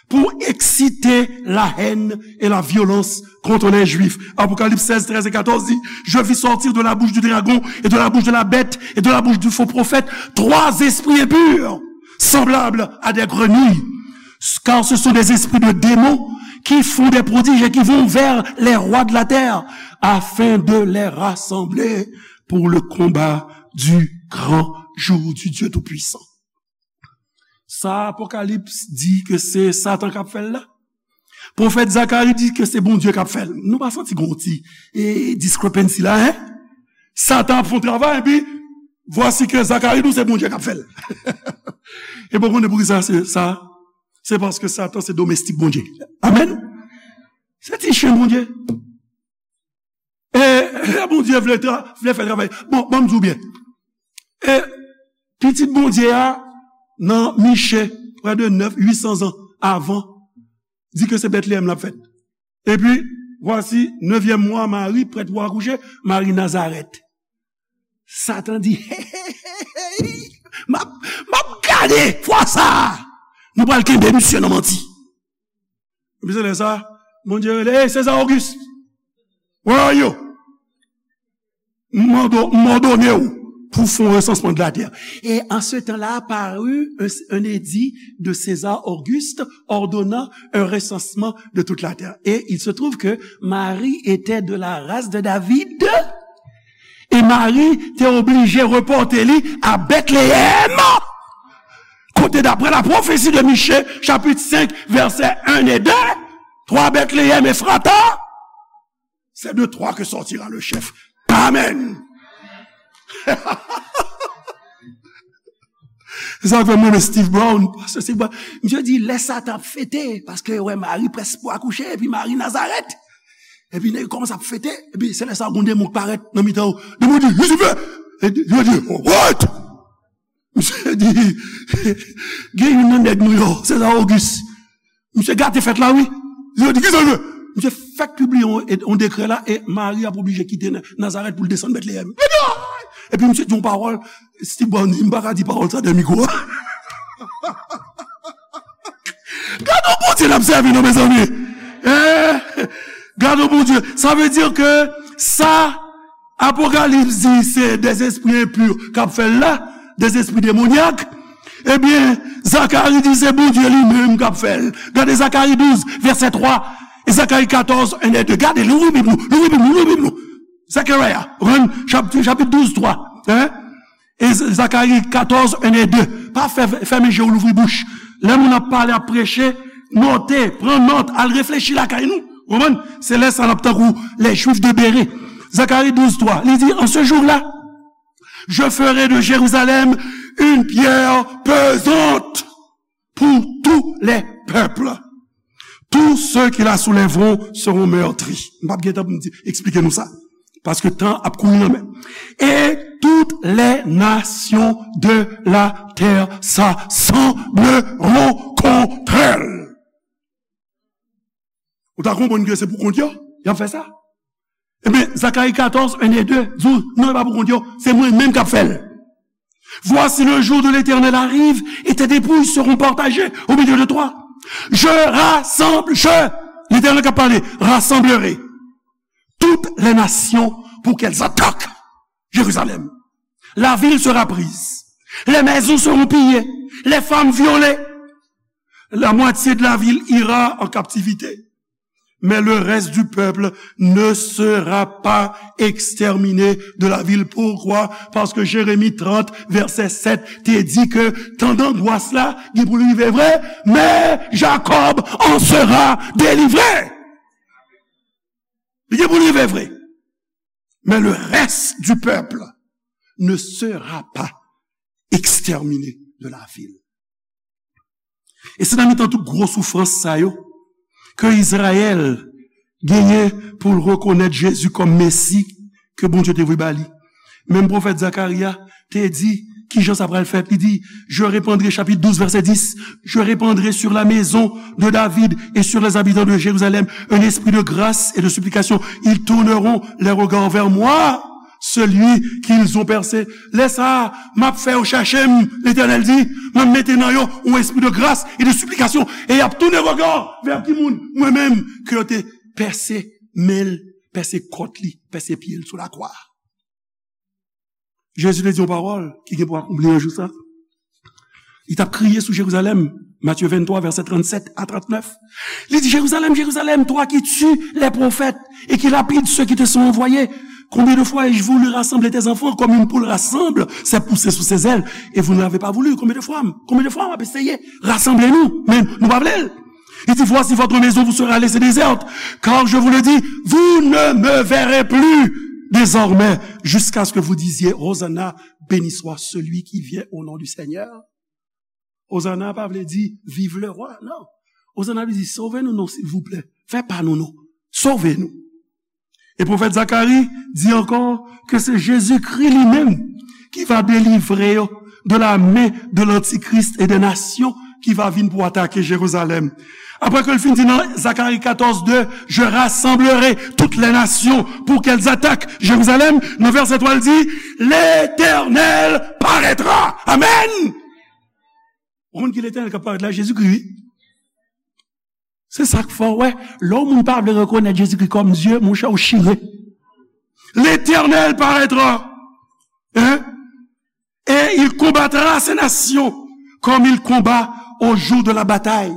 pou eksite la haine et la violence contre les Juifs. Apocalypse seize, treize et quatorze dit, je vis sortir de la bouche du dragon et de la bouche de la bête et de la bouche du faux prophète trois esprits impurs, semblables à des grenouilles, car ce sont des esprits de démons qui font des prodiges et qui vont vers les rois de la terre afin de les rassembler pour le combat du grand jour du Dieu Tout-Puissant. Sa Apokalips di ke se Satan k ap fè l la. Pwofèt Zakari di ke se Bondye k ap fè l. Nou pa santi gon ti e, discrepancy la, en? Satan ap fè yon travay, epi vwasi ke Zakari di w se Bondye k ap fè l. E bon, konnen poukisa se sa? Se paske Satan se domestik Bondye. Amèn. Se ti chen Bondye. E lè Bondye vle, tra, vle fè travay. Bon, ban m di w byen. E pitit Bondye a, nan Miche, prè de nèf, uit san zan avan, di ke se Bètleyèm l ap fèt. Epi, vwasi, nevyèm mwa, Mari, prèt pou akouche, Mari Nazarèt. Satan di, hey, hey, hey, hey, m ap, m ap gade fwa sa a. Nou pral kenbe misye nan manti. Epi se lè sa, Bondye rele, hey, César Auguste, where are you? M mande w, m òdone w pou fè yon resansman de la terre. Et en ce temps-là parut un, un édit de César Auguste ordonnant un recensement de toute la terre. Et il se trouve que Marie était de la race de David. E Mari te oblije repòte li a Bètleyèm, kote, daprè la pwofesi de Miche, chapit senk, vèsè en e de, twa Bètleyèm Efrata, c'est de toi que sortira le chef. Amen. Se sa k fè mwen renmen Steve Brown. Pastè Steve Brown, misye di, lè Satan ap fete, paske wè Mari près pou akouche, epi Mari Nazarèt. Epi nèg yo kòmanse ap fete, epi se lè sa gon demon k parèt nan mitan yo. Demon di, Lisifè! E yo di, what? Misye di, gen youn nan nèg nou yo, César Auguste. Misye gate fèt la, wi. Yo di, kisa l vle? Misye fèk pibliye yon, yon dekrè la, e Mari ap oblije kite Na-, Nazarèt pou l desann Bètleyèm. Epi misye di yon pawòl, Steve Brown di, m pa ka di pawòl sa dèyè mikwo a. Gade yon Bondye n ap sèvi, non, mezanmi. Eh, gade yon Bondye. Sa vle di ke sa Apokalips di se des esprits impurs k ap fè l la, des esprits démoniaques. Ebyen, Zakari di se Bondye li menm k ap fè l. Gade Zakari douz, vèsè twa, e Zakari katòz, en e de. Gade, louvri Bib nou, louvri Bib nou, louvri Bib nou. Zekaraya, ou konprann? Chap-, chapit douz, twa. Hein? E Z-, Zakari katòz, en e de. Pa fè, fèmen je w, louvri bouch. Lè moun ap pale, ap preche, note, pran nòt, al reflechi lakay nou. Ou konprann? Se lè sa n ap tankou les Juifs de Bérée. Zakari douz twa, li di, en ce jour-là, je ferai de Jérusalem une pierre pesante pour tous les peuples. Tous ceux qui la soulèveront seront meurtris. M p ap gen tan pou m di, eksplike nou sa. Paske tan ap kouri nan men. Et toutes les nations de la terre s'assembleront contre elle. Ou ta konprann ke se pou kont yo y ap fè sa? Ebyen, Zakari katòz, en e de, di w, non, e pa pou kont yo, se mwen menm k ap fè l. Voici, le jour de l'Éternel arrive, et tes dépouilles seront partagées au milieu de toi. Je rassemble, je, l'Éternel k ap pale, rassemblerai toutes les nations pour qu'elles attaquent Jérusalem. La ville sera prise. Les maisons seront pillées. Les femmes violées. La moitié de la ville ira en captivité. Mais le reste du peuple ne sera pas exterminé de la ville. Pourquoi? Paske Jeremi trant, vèsè sèt, te di ke tan dangwas la, gen pou l rive vre, men Jacob en sera délivré. Li gen pou l rive vre. Mais le reste du peuple ne sera pas exterminé de la ville. E se nan mitan tout gwo soufrans sa yo ke Izrayèl genyen pou l rekonèt Jezi kòm Mesi ke Bondye te voye ba li. Menm pwofèt Zakari a te di, Ki jan sa pral fèt? Li di, je répandrai, chapitre douze, verset dix, je répandrai sur la maison de David et sur les habitants de Jérusalem un esprit de grâce et de supplication. Ils tourneront les regards vers moi, celui qu'ils ont percé. Lè sa a, m ap fè yo chèche m, Letènèl di, m ap mete nan yo yon espri de grâce et de supplication, e y ap tounen rega vè ki moun? Mwen menm, ke yo te pèse men l, pèse kòt li, pèse pye l sou lakwa. Jezi te di yon pawòl ki gen pou akonpli yon jou sa. Li t ap kriye sou Jerizalèm, Matthieu vingt-trois, verset trente-sept à trente-neuf. Li di, Jérusalem, Jérusalem, toi qui tues les prophètes et qui lapides ceux qui te sont envoyés, combien de fois ai-je voulu rassembler tes enfants comme une poule rassemble ses poussets sous ses ailes, et vous n'avez pas voulu? Konbyen de fwa m, konbyen de fwa m ap eseye rasanble nou, men nou pa vle l. Il dit, voici, votre maison vous sera laissée déserte, car je vous le dis, vous ne me verrez plus désormais, jusqu'à ce que vous disiez, Hosanna, béni soit celui qui vient au nom du Seigneur. Hosanna pa vle di, vive le roi, non. Hosanna vle di, sove nou non, silvouplè. Fè pa nou non. Sove nou. E pwofèt Zakari di ankò ke se Jezikri li menm ki va delivre yo de la men de lantikris e de nasyon ki va vin pou atake Jerizalèm. Apre ke l fin di nan Zakari katòz de, je rassemblerai toutes les nations pour qu'elles attaquent Jérusalem, nan vèsè twa l di, L'Éternel paraîtra. Amen! Ou konn ki Letènèl k ap parèt la? Jezikri, wi. Se sa k fè w wè, lè yon moun pa vle rekonèt Jezikri kòm Dye, monchè, ou chire. L'Éternel paraîtra, hein, et il combattra ces nations comme il combat au jour de la bataille.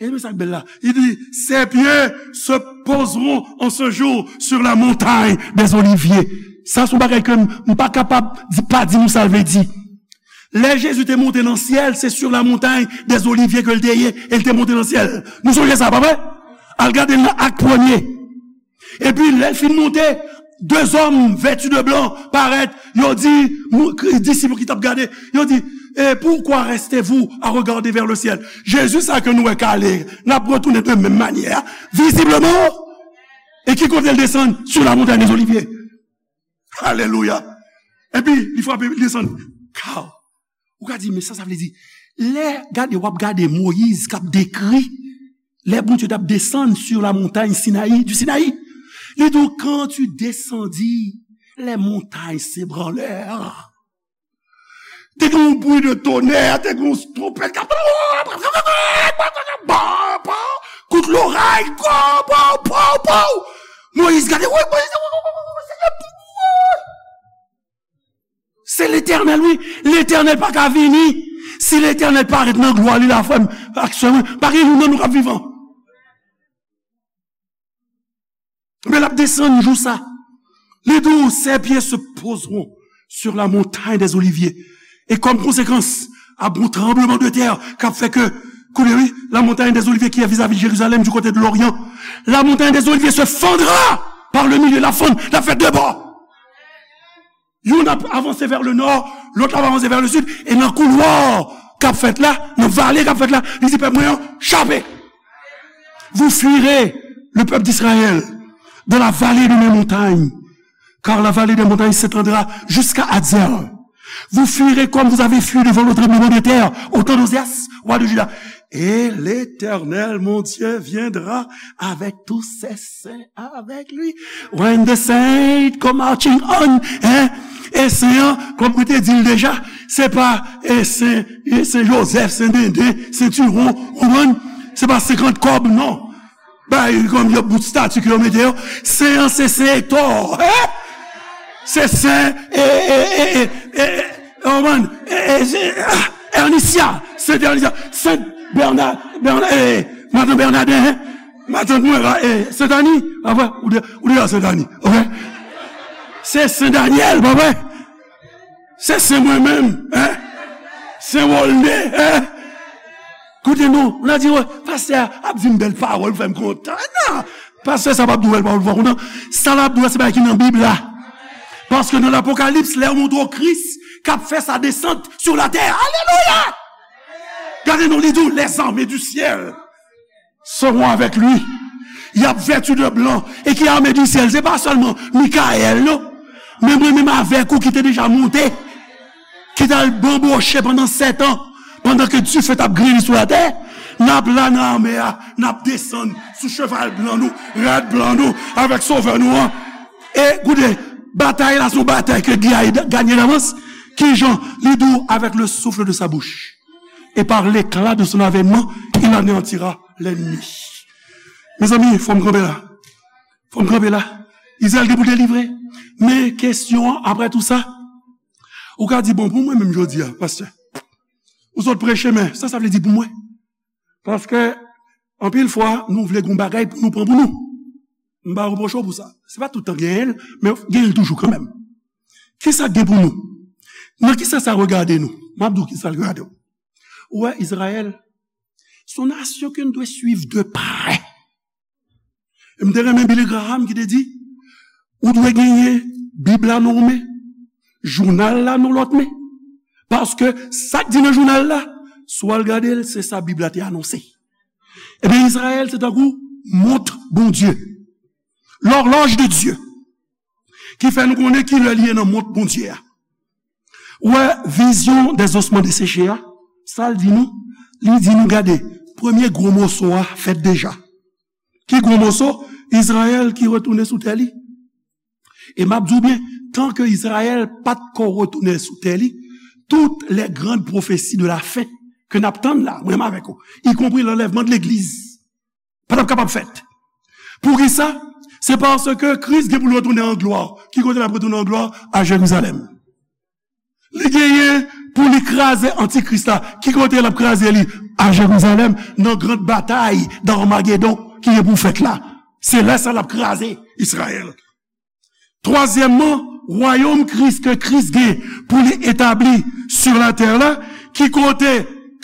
E men sa k bèl la. Il dit, ses pieds se poseront en ce jour sur la montagne des Oliviers. Sa se yon bagay ke m, m pa kapab di, pa di nou sa l vle di. Lè Jezi te monte nan syèl, se sur la montagne des Oliviers ke l te ye, e l te monte nan syèl. Nou sonje sa, pa vre? Al gade l nan Ak premye. Epi, lè l fin monte, de zòm vèti de blan parèt, yo di, mou-, kri-, disip ki t ap gade, yo di, eh, pourquoi restez-vous à regarder vers le ciel? Jezi sa ke nou wè kale, n ap retounen de menm manyè a, vizibleman. E ki kote l desann? Sur la montagne des Oliviers. Alelouya. Epi, li frape, li desann. Kaw. Ou ka di, men sa, sa vle di, lè, gade, w ap gade Moyiz k ap dekri, lè Bondye t ap desann sur la montagne Sinaï, du Sinaï, li di w, quand tu descendis, les montagnes s'ébranlèrent. Te gen yon bri de tonè, te gen yon twonpèt k ap, kout loray, pow, pow, pow, pow. Moyiz gade, wi, Moyiz, Senyè, Se Letènèl, wi. Letènèl pa ka vini. Si Letènèl parèt nan glwa li la, frè m ak sè mwen, pa gen youn nan nou k ap vivan. Men l ap desann jou sa. Li di w, ses pieds se poseront sur la montagne des Oliviers. E kòm konsekans, ap gen yon tranbleman de tè k ap fè ke, koute wi, la montagne des Oliviers qui est vis-à-vis de Jérusalem du côté de l'Orient, la montagne des Oliviers se fendra par le milieu, l ap fann, l ap fè de bò. Youn ap avanse vè le nò, lòt la ap avanse vè le sid, e nan koulwa k ap fèt la, nan vale k ap fèt la, li di pèp mwen an, chape. Vous fuirez, le peuple d'Israël, dans la vallée de mes montagnes, car la vallée des montagnes s'étendra jusqu'à Hazer. Vous fuirez comme vous avez fui devant le tremblement de terre, au temps d'Ozias, roi de Juda. Et l'Éternel, mon Dieu, viendra avec tous ses saints avec lui. When the saints come marching on, hein? E sen an, kòm mwen te di l deja, se pa, e sen, e sen Jozèf, sen Denden, sen Tiwon, ou konprann? Se pa senkant kòb, non. Bay kòm yon bout stati ke yo mete yo. Sen an, se sen Ektò, hein? Se sen, e, e, e, e, e, e, ou konprann? E, e, se, ah, Ernisia, sen Ernisia, sen Bèna, Bèna, e, matant Bènaden, hein? Matant mwen la, e, Sentani, pa vre? Ou de, ou deja Sentani, ok? Se Sen Danyèl, pa vre? Se Sen mwen menm, hein? Sen Wolne, hein? Koute non, ou nan di, wè, pastè a ap di m bèl pawòl, fè m kontan. Non, pastè sa p ap di w bèl pawòl pou w kontan. Sa l ap di w, se bagay ki nan Bib la. Paske nan Lapokalips, lè yo montre w Kris k ap fè sa desant sur la terre. Alelouya! Gade non, li di w, les armées du ciel seront avec lui. Y ap vèti de blan. E ki ame di syèl? Se pa sèlman Mikayèl, non. Men mwen menm avèk ou ki te deja monte. ki t al banboche pandan sèt an, pandan ke dife t ap greli sou latè, n ap la nan lanmè a, n ap desann sou cheval blan nou, rad blan nou, avèk Sovè nou an. E koute, batay la se yon batay ke Guy a gagné d'avance. Kijan? Li di w, avec le souffle de sa bouche et par l'éclat de son avènement, il anéantira l'ennemi. Mezanmi, fò m kanpe la. Fò m kanpe la. Izrayèl gen pou delivre. Men kesyon an, apre tou sa, ou ka di, bon, pou mwen menm jodi a, pastè, ou sot preche, men sa, sa vle di pou mwen? Paske, anpil fwa, nou vle gon bagay pou nou pran pou nou. M pa repwoche w pou sa. Se pa tout tan genyen l, men genyen l toujou kanmenm. Kisa k gen pou nou? Nan kisa sa regade nou? M ap di w kisa l regade w. Ou wè, Izrayèl, se yon nasyon ke n dwe swiv de prè. E m te renmen Billy Graham ki te di, ou dwe genyen Bib la nan yon men, jounal la nan lòt men. Paske sa k di nan jounal la, si w al gade l, se sa Bib la te anonse. Ebyen, Izrayèl se tankou mont Bondye, lòlòj de Dye, ki fè nou konnen ki lè li ye nan mont Bondye a. Ou wè, vizyon des ossements desséchés a, sa l di nou? Li di nou, gade, premye gwo moso a fèt deja. Ki gwo moso? Izrayèl ki retounen sou tè li. E m ap di w byen, tan ke Izrayèl pa t ko retounen sou tè li, toutes les grandes prophéties de la fin ke n ap tann la, mwen menm avèk ou, y compris l'enlèvement de l'église, pa t ap kapab fèt. Poukisa? Se paske Kris gen pou l retounen an glwa. Ki kote l ap retounen an glwa? A Jerizalèm. Li genyen pou li kraze antikris la. Ki kote l ap kraze li? A Jerizalèm, nan gran batay d'Armagedon ki gen pou fèt la. Se lè sa l ap kraze Izrayèl. Twazyèmman, wayòm Kris ke Kris gen pou li etabli sou latè la, ki kote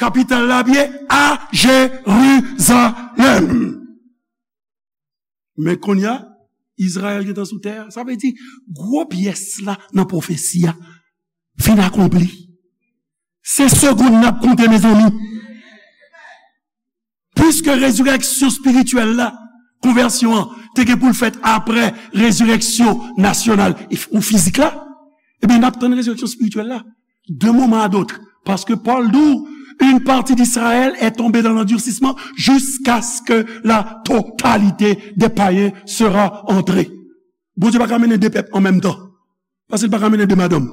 kapital la ap ye? A Jerizalèm. Men kounye a, Izrayèl gentan sou tè a. Sa vle di, gwo pyès la nan pwofesi a fin akonpli. Se segonn n ap konte, mezanmi. Piske rezirèksyon espirityèl la, konvèsyon an, te gen pou l fèt apre rezirèksyon nasyonal e f-, ou fizik la, ebyen, n ap tann rezirèksyon espirityèl la d'un moment à d'autre. Parce que Paul dit, une partie d'Israël est tombée dans l'endurcissement jusqu'à ce que la totalité des païens sera entrée. Bondye pa ka mennen de pèp an menm tan. Paske l pa ka mennen de madanm.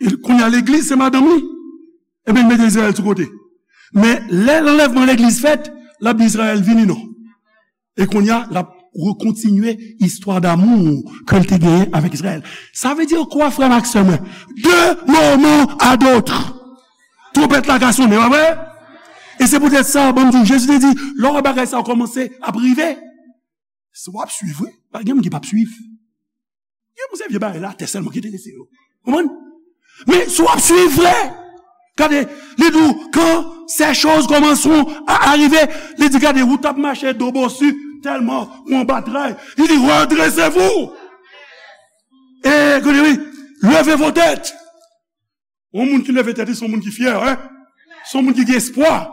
E kounye a, legliz se madanm li. Ebyen, l mete Izrayèl sou kote. Men, lè lanlèvman legliz fèt, l ap di Izrayèl, vini non. E kounye a, l ap rekontinye istwa damou ke l te genyen avèk Izrayèl. Sa vle di kwa, frè m ak sè mwen? De moman a dòt, twonpèt la ka sonnen, pa vre? E se poutèt sa, ban m di w, Jezi te di, lè w wè bagay sa yo kòmanse ap rive, si w ap swiv, wi, pa gen moun ki p ap swiv. Gen moun se vye bagay latè sèlman ki enterese yo. Konprann? Men si w ap swiv vre, gade, li di w, quand ces choses commenceront à arriver, li di, gade, ou t ap mache do bosi, tèlman ou anba tray. Li di, redressez-vous. E, gade, wi, levez vos têtes. Yon moun ki leve tèt li, se yon moun ki fyè, wi. Se yon moun ki gen espwa.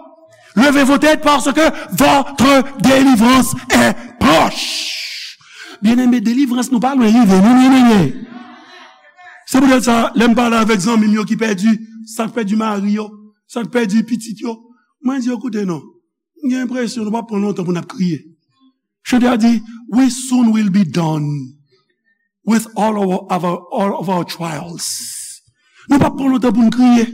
Levez vos têtes parce que votre délivrance est proche. Byeneme, delivrans nou pa lwen rive, non, byeneme. Se poutèt sa, lè m pale avèk zanmi m yo ki pèdi, sa k pèdi mari yo, sa k pèdi pitit yo, mwen di yo, koute non, m gen enpresyon nou p ap pran lontan pou n ap kriye. Chante a di, we soon will be done with all of our, all of our trials. Nou p ap pran lontan pou n kriye.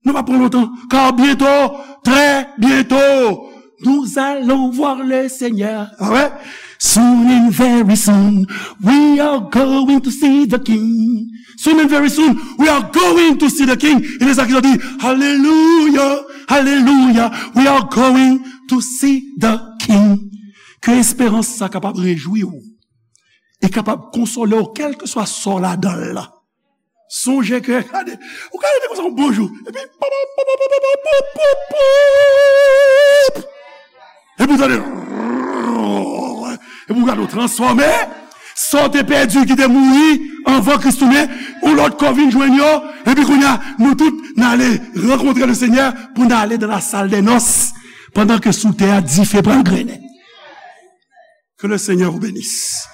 Nou p ap pran lontan. Car bientôt, très bientôt, nous allons voir le Seigneur. Ah ouais? Soon and very soon, we are going to see the King. Soon and very soon, we are going to see the King. E se sa ki di, Hallelujah, hallelujah, we are going to see the King. Ke esperans sa kapab rejwi w e kapab konsole w, kèlkeswa sa w ladan l la. Sonje ke, gade, ou ka rete konsa yon bon jou, epi, pop, pop, pop, epi w tande, epi w gade w transfòme, sa w te pèdi ki te mouri anvan Kris tounen, yon lòt kò vin jwenn yo, epi kounye a, nou tout, n ale rankontre le Senyè pou n ale dans la salle des noces, pandan ke sou tè a, dife pral grennen. Que le Seigneur vous bénisse.